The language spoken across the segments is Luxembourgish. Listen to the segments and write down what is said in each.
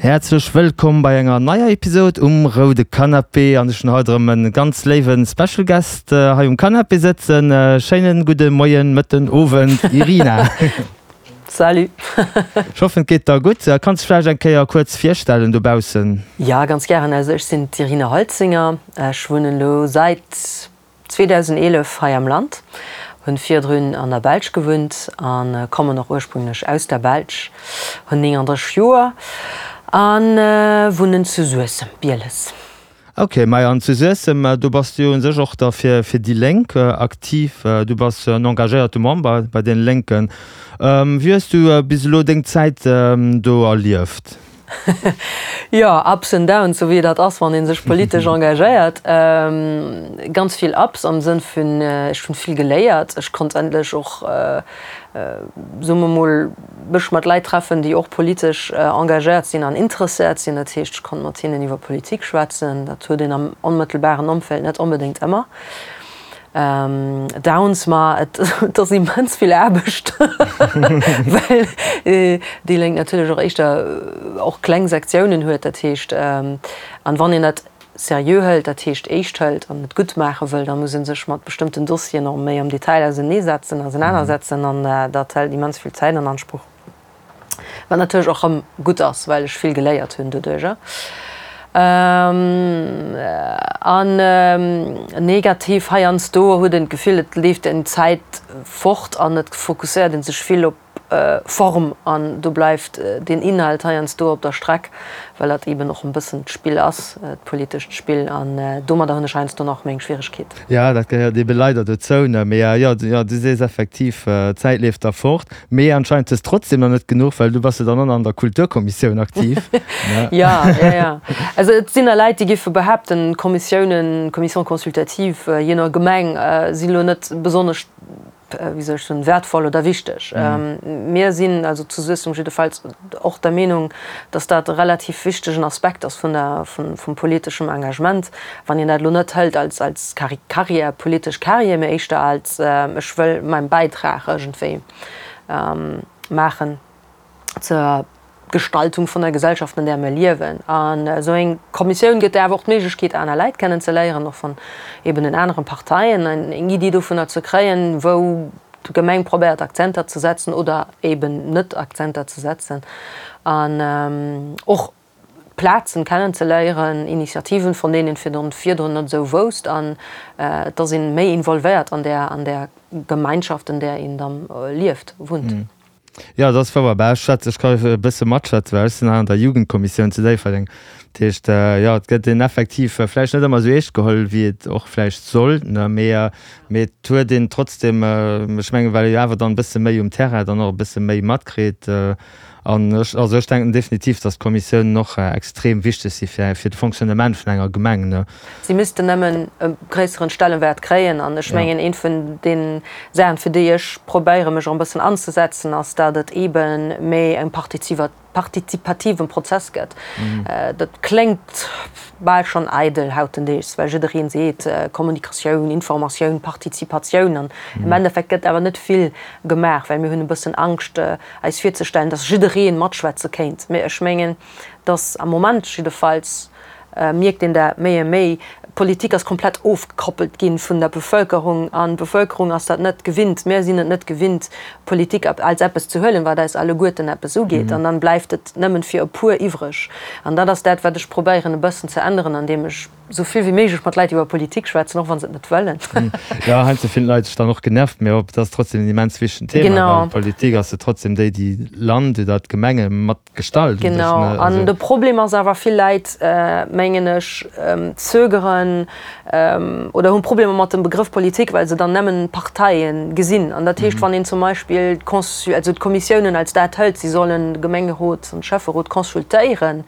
Häerzlech wëllkomm bei enger neier Episode um roude Canapé an ech hunn haut erëm en ganz léiwen Special Guest hei um Canapé sëtzen. Schéinen gudde Moien, Mëtten, Owend Irina. Salut. Ech hoffen et geet der gutt. Kanns dech vläicht eng Kéier kuerz virstellen dobaussen? Jo, ganz gären. Also ech sinn d'Irina Holzinger, ech wunnen elo säit 2011 hei am Land, hunn virdrun an der Belsch gewunnt a kommen och ursprünglech aus der Belsch, hunn 39 Joer a wunnen zu Suessem, Bieles. Ok, majo an zu Suessem, do bass du jo un sech och da fir fir déi Lénk aktiv, du bass en engagéierte Member bei deene Lénken. Wéi hues du bis elo deng Zäit do erlieft? Jo, Ups and Downs, sou wéi dat ass, wann ee sech politesch engagéiert. Ganz vill Ups am Sënn vun, ech hunn vill geléiert. Ech konnt endlech och, soe mer mol, mech mat Leit treffen, déi och politesch engagéiert sinn an interesséiert sinn. Dat heescht, ech konnt mat hinnen iwwer Politik schwätzen. Dat huet een am onmëttelbaren Ëmfeld net onbedéngt ëmmer. Downs, ma et ass immens vill Aarbecht, well déi Lénk natierlech och éischter och kleng Sektiounen huet. Dat heescht, an wann een dat seriö hëlt, dat heescht eescht hëlt an et gutt maache wëll, da muss ee sech mat bestëmmten Dossieren och méi am Detail auseneesetzen, ausenanersetzen an dat hëlt immens vill Zäit an Ansproch. Wat natierlech och rëm gutt ass, well ech vill geléiert hunn doduercher. An negativ, heiansdo huet een d'Gefill, et leeft een d'Zäit fort an et fokusséiert ee sech vill op Form an do bleift den Inhalt heiansdo op der Streck, well dat eeben och e bëssen d'Spill ass, d'politescht Spill. An domadder hunn ech heiansdo nach meng Schwieregkeet. Jo, dat gehéiert eebe leider dozou, ne? Mee jo, jo, du sees effektiv, d'Zäit leeft da fort. Mee anscheinend hues trotzdem nach net genuch, well du bass jo dann och nach an der Kulturkommissioun aktiv, ne? Jo, jo, jo. Also et sinn der Leit, déi géife behaapten, d'Kommissiounen, Commissions consultatives, jee no Gemeng, sinn elo net besonnesch, wéi soll ech soen, wäertvoll oder wichteg. Mir sinn also zu Suessem jiddefalls och der Meenung, dass dat e relativ wichtegen Aspekt ass vun der, vum politeschem Engagement. Wann een dat elo net hëlt als, als Carrière, politesch Carrière, mee éischter als ech wëll mäin Bäitrag iergendwéi maachen zur Gestaltung vun der Gesellschaft, an där mir liewen. An esou eng Kommissioun gëtt der awer och d'Méiglechkeet, aner Läit kennen ze léieren, och vun eben den aneren Parteien, eng Iddi dovunner ze kréien, wou d'Gemeng probéiert Akzenter ze setzen oder eben net Akzenter ze setzen. An och Plazen kennen ze léieren, Initiativen, von deenen een virdrun net esou wousst, an et ass een méi involvéiert an där, an där Gemeinschaft, an där een dann lieft, wunnt. Jo, dat ass wouer. Bah, ech schwätz, ech ka e bësse matschwätzen, well ech sinn hei an der Jugendkommissioun zu Déifferdeng. Dat heescht, jo, et gëtt een effektiv vläicht net ëmmer esou eescht geholl, wéi et och vläicht sollt, ne, mee, mee et huet een trotzdem, ech mengen, well ee jo awer dann e bësse méi um Terrain dann och e bësse méi matkritt, An ech, also ech denken definitiv, dass d'Kommissiounen och extrem wichteg si fir, fir de Fonctionnement vun enger Gemeng, ne. Si missten nëmmen e gréisseren Stellenwäert kréien. An ech mengen, eent vun den Saachen, fir déi ech probéiere mech och e bëssen anzesetzen, ass, dat et eebe méi e partizipativen Prozess gëtt. Dat kléngt bal schonn eidel hautendeegs, well jiddereen seet, Kommunikatioun, Informatioun, Partizipatioun. An am Endeffekt gëtt awer net vill gemaach, well mir hunn e bëssen Angscht, eis virzestellen, dass jidderee matschwätze kéint. Mee ech mengen, dass am Moment jiddefalls mierkt een dat méi a méi, d'Politik ass komplett ofgekoppelt gi vun der Bevölkerung an d'Bevölkerung ass dat net gewinnt. Mir sinn et net gewinnt, Politik als eppes ze huelen, wat eis alleguerten eppes ugeet. An dann bleift et nëmmen fir e puer iwwreg. An dat ass dat, wat ech probéieren e bëssen ze änneren, andeem ech Sou vill wéi méiglech mat Leit iwwer Politik schwätzen, och wa se et net wëllen. Jo, heiansdo fillen d'Leit sech dann och genervt, mee et ass trotzdem en immens wichtegen Thema, Genau. well Politik ass jo trotzdem déi, déi Land oder d'Gemenge mat gestalt u sech, Genau. ne? An Also. de Problem ass awer, vill Leit, mengen ech, zögeren oder hunn Problemer mat dem Begrëff Politik, well se dann nëmmen Parteien gesinn. An dat heescht, wann een zum Beispill d'Consul-, also d'Kommissiounen als dat hëlt, si sollen de Gemengerot an de Schäfferot consultéieren,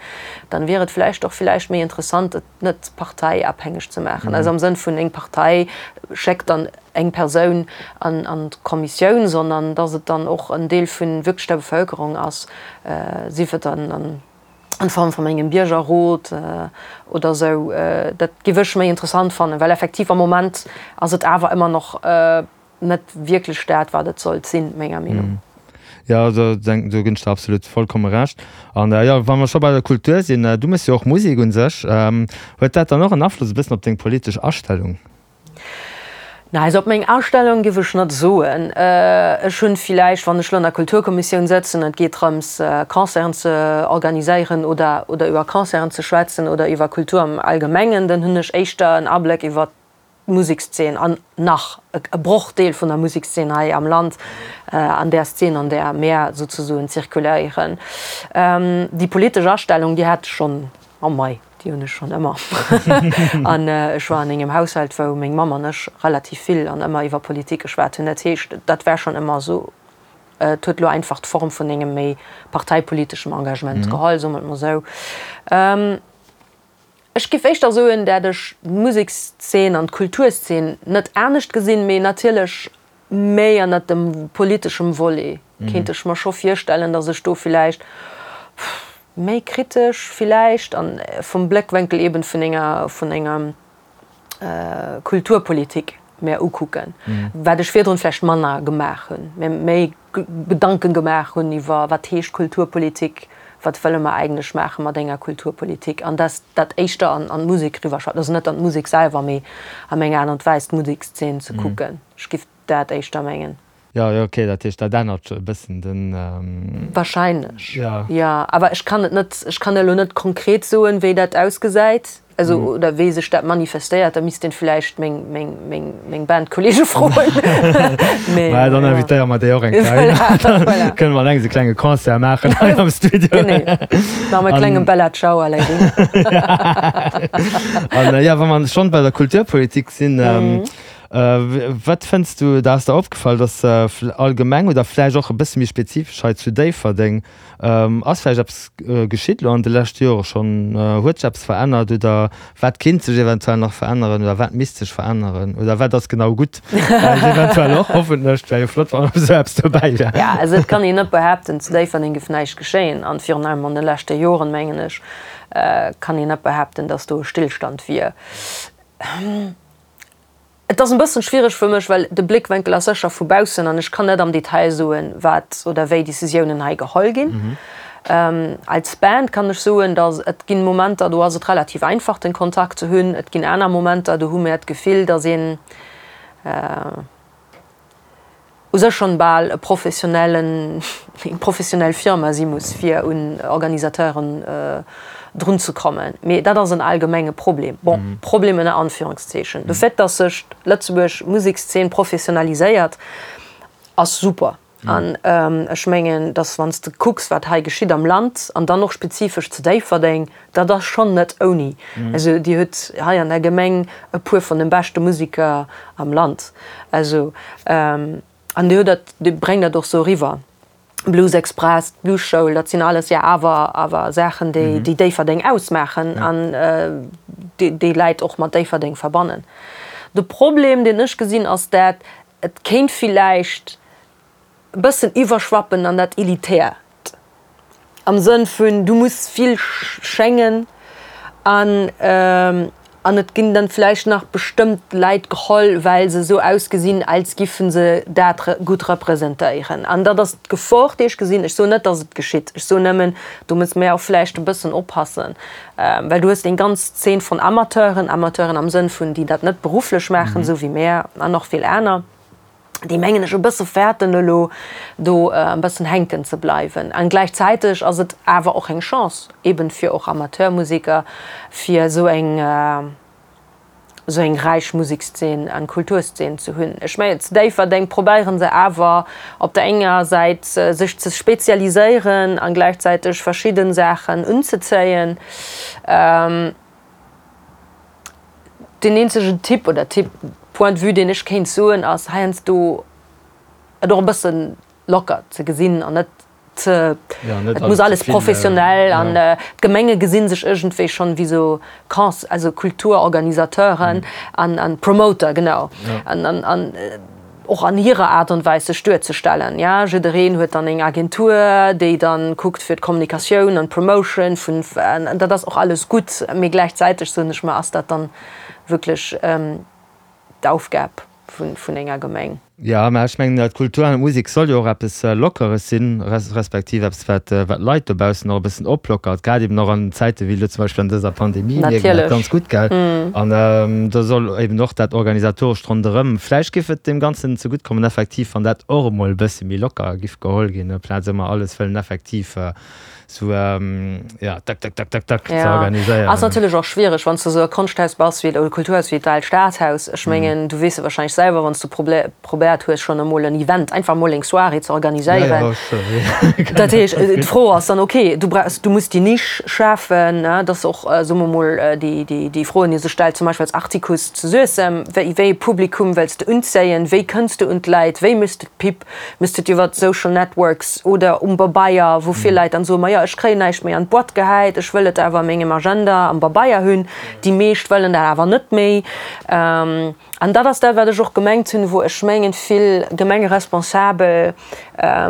dann wier et vläicht och villäicht méi interessant, et net parteiabhängeg ze maachen, also am Sënn vun eng Partei schéckt dann eng Persoun an an d'Kommissioun, sondern dass et dann och en Deel vun wierklech der Bevölkerung ass, sief et dann an an Form vun engem Biergerrot oder esou. Dat géif ech méi interessant fannen, well effektiv am Moment ass et awer ëmmer nach net wierklech dat, wat et sollt sinn, menger Meenung. Jo, do do ginn ech der absolut vollkomme Recht. An jo, wa mer scho bei der Kultur sinn, du méchs jo och Musek un sech. Huet dat dann och en Afloss e bëssen op deng politesch Astellung? Na, also op meng Astellung giff ech net soen. Ech hunn villäicht, wann ech lo an der Kulturkommissioun sëtzen an et geet drëms Concerten ze organiséieren oder oder iwwer Concerten ze schwätzen oder iwwer Kultur am Allgemengen, dann hunn ech éischter en Abléck iwwer d'Musekszeen an nach e Brochdeel vun der Musekszeen hei am Land, an där Szene, an där mär souzesoen zirkuléieren. Déi politesch Astellung, déi hat ech schonn, oh mei, déi hunn ech schonn ëmmer. An ech war an engem Haushalt, wou meng Mamm an ech relativ vill an ëmmer iwwer Politik geschwat hunn. Dat heescht, dat war schonn ëmmer esou. Et huet elo einfach d'Form vun engem méi parteipoliteschem Engagement geholl, soe mer et mol esou. Ech giff éischter soen, dat ech d'Musekszeen an d'Kulturszeen net anescht gesinn, mee natierlech méi ënnert dem politeschem Volet kéint ech mer scho virstellen, datt ech do villäicht méi kritesch villäicht an vum Bléckwénkel eben vun enger vun enger Kulturpolitik mär ukucken, wat ech virdrun vläicht manner gemaach hunn, mir méi Gedanken gemaach hunn iwwer wat heescht Kulturpolitik, wat wëlle mer eigentlech maache mat enger Kulturpolitik an dass dat éischter an an d'Musek eriwwerschwappt, also net an d'Musek selwer, mee a menger Aart an Weis d'Musekszeen ze kucken. Ech giff dat éischter mengen. Jo, jo, okay, dat heescht, dat ännert e bëssen den. Wahrscheinlech, jo. Awer ech kann et net, ech kann elo net konkret soen, wéi dat ausgesäit, also oder wéi sech dat manifestéiert. Da misst een vläicht meng, meng, meng, meng Bandkolleege froen. Mee, Mä dann invitéiere mer déi och eng Kéier. Voilà, voilà. Kënne mer an engem e klenge Concert maachen hei am Studio. Genee. Maache mer e klenge Bella Ciao aller. An jo, wa mer schonn bei der Kulturpolitik sinn, Wat fënns du, da ass der opgefall, dass allgemeng oder vläicht och e bësse méi spezifesch hei zu Déifferdeng, ass vläicht eppes geschitt elo an de leschte Jore schonn? Huet sech eppes verännert oder wat kinnt sech eventuell nach veränneren oder wat misst sech veränneren oder wat ass genau gutt vläicht eventuell och? Hoffentlech, et wär jo flott, wann esou eppes dobäi wär. Jo, also et kann een net behaapten, zu Déifferdeng géif näischt geschéien an virun allem an de leschte Joren, mengen ech, kann een net behaapten, dass do e Stillstand wier. Et ass en bëssen schwiereg fir mech, well de Bléckwenkel ass sécher vu baussen an ech kann net am Detail soen, wat oder wéi Decisiounen hei geholl ginn. Als Band kann ech soen, datt et ginn Momenter, do ass et relativ einfach den Kontakt ze hunn. Et ginn aner Momenter, do hu mär d'Gefill, datt een, u sech schonn bal e professionellen, eng professionell Firma si muss, fir un Organisateuren drun ze kommen. Mee dat ass en allgemenge Problem. Bon, Problem ënner Anführungszeechen. De Fait, dass sech d'Lëtzebuerg Musekszeen professionaliséiert, ass super. An ech mengen, dass wann s de kucks, wat hei geschitt am Land an dann och spezifesch zu Déifferdeng, Dat ass schonn net ouni. Also Dir hutt hei an der Gemeng e puer vun de beschte Museker am Land. Also an Dir hutt dat, Dir bréngt dat och sou eriwwer. Blues Express, d'Bluesschoul, dat sinn alles jo awer awer Saachen, déi déi Déifferdeng ausmaachen an déi déi Läit och mat Déifferdeng verbannen. De Problem, deen ech gesinn, ass dat et kéint villäicht e bëssen iwwerschwappen an dat Elitäert. Am Sënn vun, du muss vill schéngen an an et ginn dann vläicht nach bestëmmt Läit geholl, well se esou ausgesinn, als giffen se dat gutt representéieren. An dat ass d'Gefor, déi ech gesinn. Ech soen net, datt et geschitt. Ech soen nëmmen, do musse mir och vläicht e bëssen oppassen, well du hues eng ganz Zeen von Amateuren, Amateuren am Sënn vun, déi dat net berufflech maachen, esou wéi mär an och vill aner. déi mengen ech e bësse fäerten elo do e bëssen hänken ze bleiwen. An gläichzäiteg ass et awer och eng Chance eben fir och Amateurmusiker, fir esou eng esou eng räich Musekszeen an Kulturszeen ze hunn. Ech mengen zu Déifferdeng probéiere se awer op der enger Säit sech ze spezialiséieren an gläichzäiteg verschidde Saachen unzezéien. Deen eenzegen Tipp oder Tipp, Point de vue, deen ech kéint soen, ass heiansdo et och e bësse locker ze gesinn an net ze, et muss alles professionell an d'Gemenge gesi sech iergendwéi schonn wéi sou Cons, also Kulturorganisateuren an Promoter, genau. An an och an hirer Aart an Weis sech duerzestellen. Ja, jiddereen huet dann eng Agentur, déi dann kuckt fir d'Kommunikatioun an d'Promotion vun, an dat ass och alles gutt, mee gläichzäiteg soen ech mer, ass dat dann wierklech d'Aufgab? vun enger Gemeng. Jo, mä ech mengen, d'Kultur an d'Musek soll jo och eppes Lockeres sinn, respektiv eppes, wat d'Leit dobaussen och e bëssen oplockert, grad eben och an Zäite wéi elo zum Beispill an dëser Pandemie mierkt een dat ganz gutt, gell? An do soll eben och dat Organisatorescht ronderëm, vläicht géif et deem Ganzen zegutt kommen effektiv, wann dat och emol e bësse méi locker giff geholl ginn, amplaz ëmmer alles wëllen effektiv Sou, ja, tak, tak, tak, tak, tak ze organiséieren. Ass natierlech och schwiereg, wann s de esou e Konschthaus bass wéi, oder Kulturhaus wéi d'Aalt Stadhaus. Ech mengen, du weess et wahrscheinlech selwer, wann s du probéiert hues, schonn emol en Event, einfach emol eng Soirée ze organiséieren. Dat heescht, d'Fro ass dann, okay, du brauchs, du muss déi Nisch schafen, ne, dass och, soe mer emol, déi, déi, déi Froen, déi sech stellt, zum Beispill als Artikuss zu Suessem, wéi, wéi e Publikum wëlls de unzéien, wéi kënns de un d'Leit, wéi méchs de d'Pub? Méchs de et iwwer Social Networks oder um Babeier, wou vill Leit dann soen, majo ech kréien näischt méi an d'Boîte gehäit, ech wëll et awer a mengem Agenda am Babeier hunn. Déi meescht wëllen dat awer net méi. An dat ass dat, wat ech och gemengt hunn, wou ech mengen, vill Gemengeresponsabel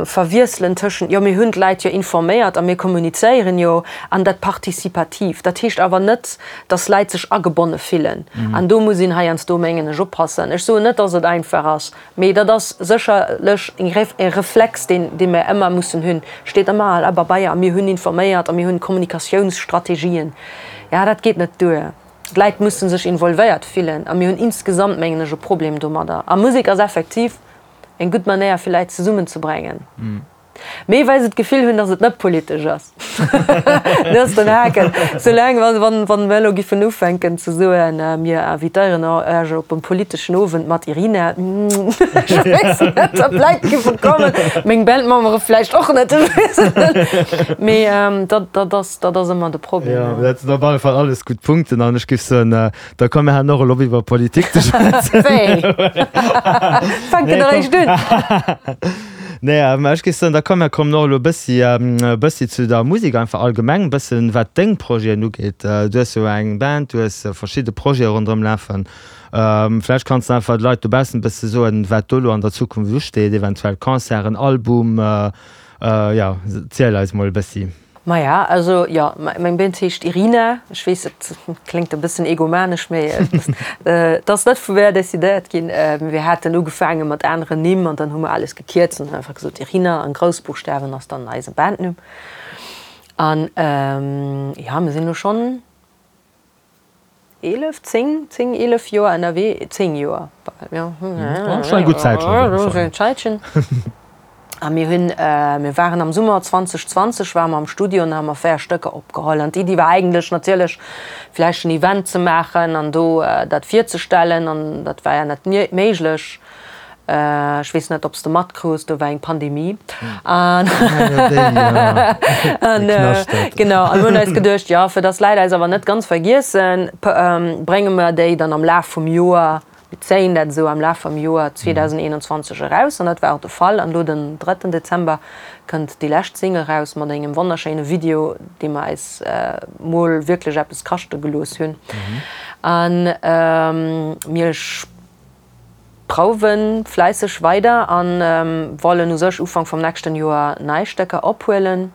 verwiesselen tëschent, jo mir hunn d'Leit jo informéiert a mir kommunizéieren jo, an dat Participativ. Dat heescht awer net, dass Leit sech agebonne fillen. An do muss een heiansdo, mengen ech, oppassen. Ech soen net, dass et einfach ass. Mee dat ass sécherlech e Reflex, deen dee mer ëmmer mussen hunn. Steet ëmmer a Pabeier a mir hunn informéiert a mir hunn Kommunikatiounsstrategien. Ja, dat geet net duer. D'Läit musse sech involvéiert fillen a mir hunn insgesamt, mengen ech, e Problem domadder. A Musek ass effektiv eng gutt Manéier, fir Läit zesummenzebréngen. Mee well se d'Gefill hunn, datt et net politesch ass. Dat ass den Haken. Soulaang, wann, wann mer elo giffen ufänken ze soen, mir invitéieren Iech op e politeschen Owend mat Irina, ech weess net, ob Leit giffe kommen. Meng Bandmembere vläicht och net, ech weess et net. Mee dat, dat ass, dat ass ëmmer de Problem. Jo, dat sinn op alle Fall alles gutt Punkten an ech giff soen, da komm mir halen och elo op iwwer Politik ze schwätzen. Wéi? Fänken eréischt un. Nee, mä ech géif soen, da komm, mir kommen och elo e bëssi, e bëssi zu der Musek einfach allgemeng, e bëssen, wat deng Projeten ugeet. Du hues jo eng Band, du hues verschidde Projete ronderëm lafen. Vläicht kanns de einfach de Leit dobaussen e bësse soen, wat do elo an der Zukunft usteet, eventuell Concerten, Album, jo, ziel eis mol e bëssi. Maja, also jo, meng Band heescht Irina. Ech weess, et kléngt e bëssen egomanesch, mee et ass net vu mär decidéiert ginn. Mir haten ugefaange mat aneren Nimm an dann hu mer alles gekierzt an hunn einfach gesot Irina an Groussbuchstawen ass dann eise Bandnumm. An jo, mir sinn elo schonn 11, 10, 10, 11 Joer ënnerwee, 10 Joer, jo, Schon eng gutt Zäitchen op jidde Fall. Zäitchen. A mir hunn, mir waren am Summer 2020 ware mer am Studio an da hu mer 4 Stécker opgeholl. An d'Iddi war eigentlech natierlech vläicht en Event ze maachen an do dat virzestellen an dat war ja net méiglech. Ech weess net, ob s de matkruus, do war eng Pandemie. An genau, an mir hunn eis geduecht, jo, fir dass d'Leit eis awer net ganz vergiessen, brénge mer déi dann am Laf vum Joer, mir zéien dat esou am Laf vum Joer 2021 eraus. An dat war och de Fall. An elo den drëtten Dezember kënnt déi lescht Single eraus mat engem wonnerschéine Video, dee mer eis mol wierklech eppes kaschte gelooss hunn. An mir. Prouwen fläisseg weider an wollen u sech Ufank vum nächsten Joer nei Stécker ophuelen.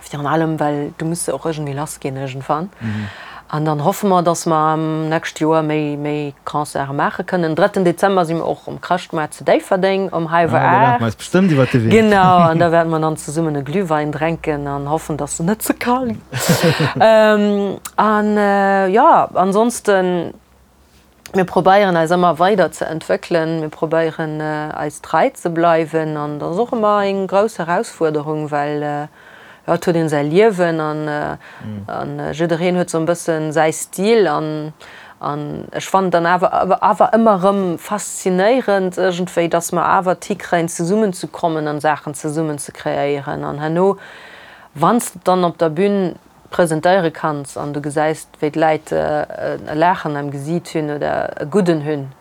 Virun allem well du muss se och iergendwéi lass ginn iergendwann. An dann hoffe mer, dass mer am nächst Joer méi méi Concerte maache kënnen. Drëtten Dezember si mer och um Chrëschtmoart zu Déifferdeng um hallwer 8. Bestëmmt iwwer de Wee. Genau, an da wäerte mer dann zesummen e Glühwein drenken an hoffen, dass en net ze kal gëtt. An jo, ansonsten. Mir probéieren eis ëmmer weider ze entwéckelen, mir probéieren eis trei ze bleiwen an dat ass och ëmmer eng grouss Erausfuerderung, well jo et huet een säi Liewen an an jiddereen huet sou e bëssen säi Stil an an ech fannen dann awer awer ëmmer erëm faszinéierend iergendwéi, dass mer awer et hikréien zesummen ze kommen an Saachen zesummen ze kreéieren an herno wann s de dann op der Bün presentéiere kanns an du gesäis wéi d'Läit e Laachen am Gesiit hunn oder e gudden hunn,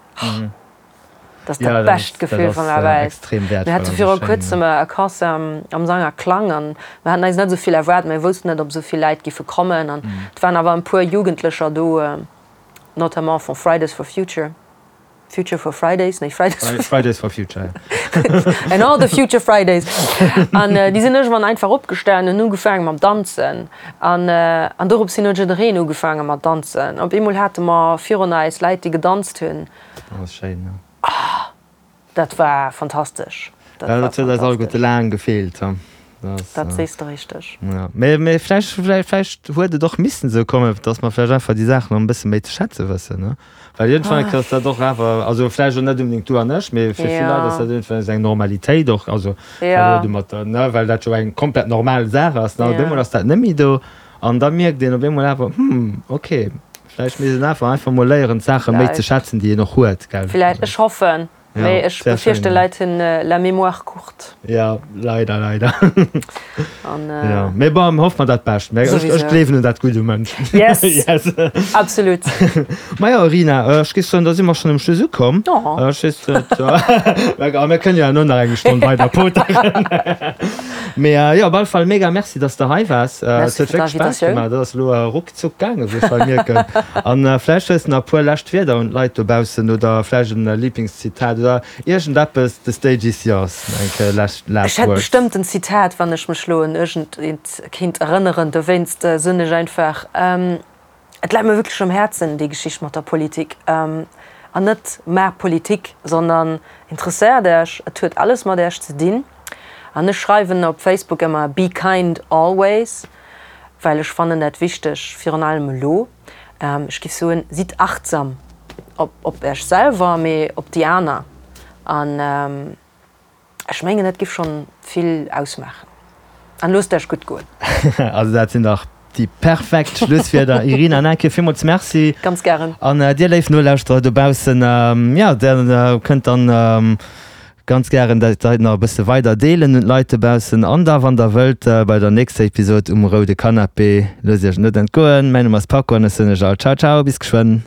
dat ass dat bescht Gefill vun der Welt. Mir hate viru kuerzem e Concert am Sang a Klang an mir haten eis net esou vill erwaart, mir woussten net ob esou vill Läit giffe kommen an et waren awer e puer Jugendlecher do, notamment vu Fridays for Future. Future for Fridays, nee Fridays for Fridays for Future. And all the future Fridays. An äh, déi sinn iergendwann einfach opgestanen an ugefaange mam Danzen. An, äh, an dorops hin huet jiddereen ugefaange mat danzen. Op eemol hate mer virun eis Läit, déi gedanzt hunn. Dat ass schéin, ja. Dat war fantastesch. Dat war dat huet eis alleguerte laang gefeelt. Dat sees de richteg. Ja, mee, mee vläicht, vläicht, vläicht huet et och missen esou kommen, dass mer vläicht einfach déi Saachen och e bësse méi ze schätze wëssen, ne? Well iergendwann ass dat och awer, also vläicht och net unbedéngt du an ech, mee fir vill Leit ass dat iergendwann esou eng Normalitéit och, also well domatter, ne, well dat jo eng komplett normal Saach ass, ne? Op eemol ass dat net méi do an da mierkt een op eemol awer, hm, okay, vläicht misst een awer einfach mol léieren, d'Saache méi ze schätzen, déi een och huet, gell? Vläicht, ech hoffen. Mee ech befierchten Leit hunn la mémoire courte. Ja, leider, leider. An, ja. Mee bon, hoffe mer dat Bescht. Mee ech, ech gleewen un dat Gutt um Mënsch. Yes! Yes. Absolut. Majo, Rina, ech géif soen, da si mer schonn um Schluss ukomm. Oh. Ech weess net, a mir kënnen jo herno nach eng Stonn weider poteren. Mee jo, op alle Fall mega Merci, dass de hei waars. Merci fir d'Invitatioun. Et huet wierklech Spaass gemaach. Dat ass elo ruckzuck gaangen, wéi ech hei mierken. An vläicht hues de nach e puer lescht Wierder un d'Leit dobaussen oder vläicht en Liblingszitat oder iergendeppes, the stage is yours, eng Kéier last words. Ech hätt bestëmmt en Zitat, wann ech mech lo un iergendeent kéint erënneren. Dowéinst soen ech einfach, Et läit mir wierklech um Häerzen, déi Geschicht mat der Politik. An net maach Politik, sondern interesséiert Äech, et huet alles mat Äech ze dinn. An ech schreiwen op Facebook ëmmer Be kind always, well ech fannen dat wichteg, virun allem elo. Ech géif soen, sidd achtsam op op Äech selwer, mee op déi aner. An ech mengen, dat géif schonn vill ausmaachen. An loosst Äech gutt goen. Also dat sinn dach déi perfekt Schlusswierder. Irina, nach eng Kéier villmools Merci. Ganz gären. An dir léif Nolauschterer dobaussen, jo, der kënnt dann ganz gären dat hei nach e bësse weider deelen un d'Leit dobaussen. An da wann der wëllt bei der nächster Episod um roude Canapé, loosst iech et net entgoen. Mäin Numm ass Paco an ech soen iech all Ciao ciao, bis geschwënn.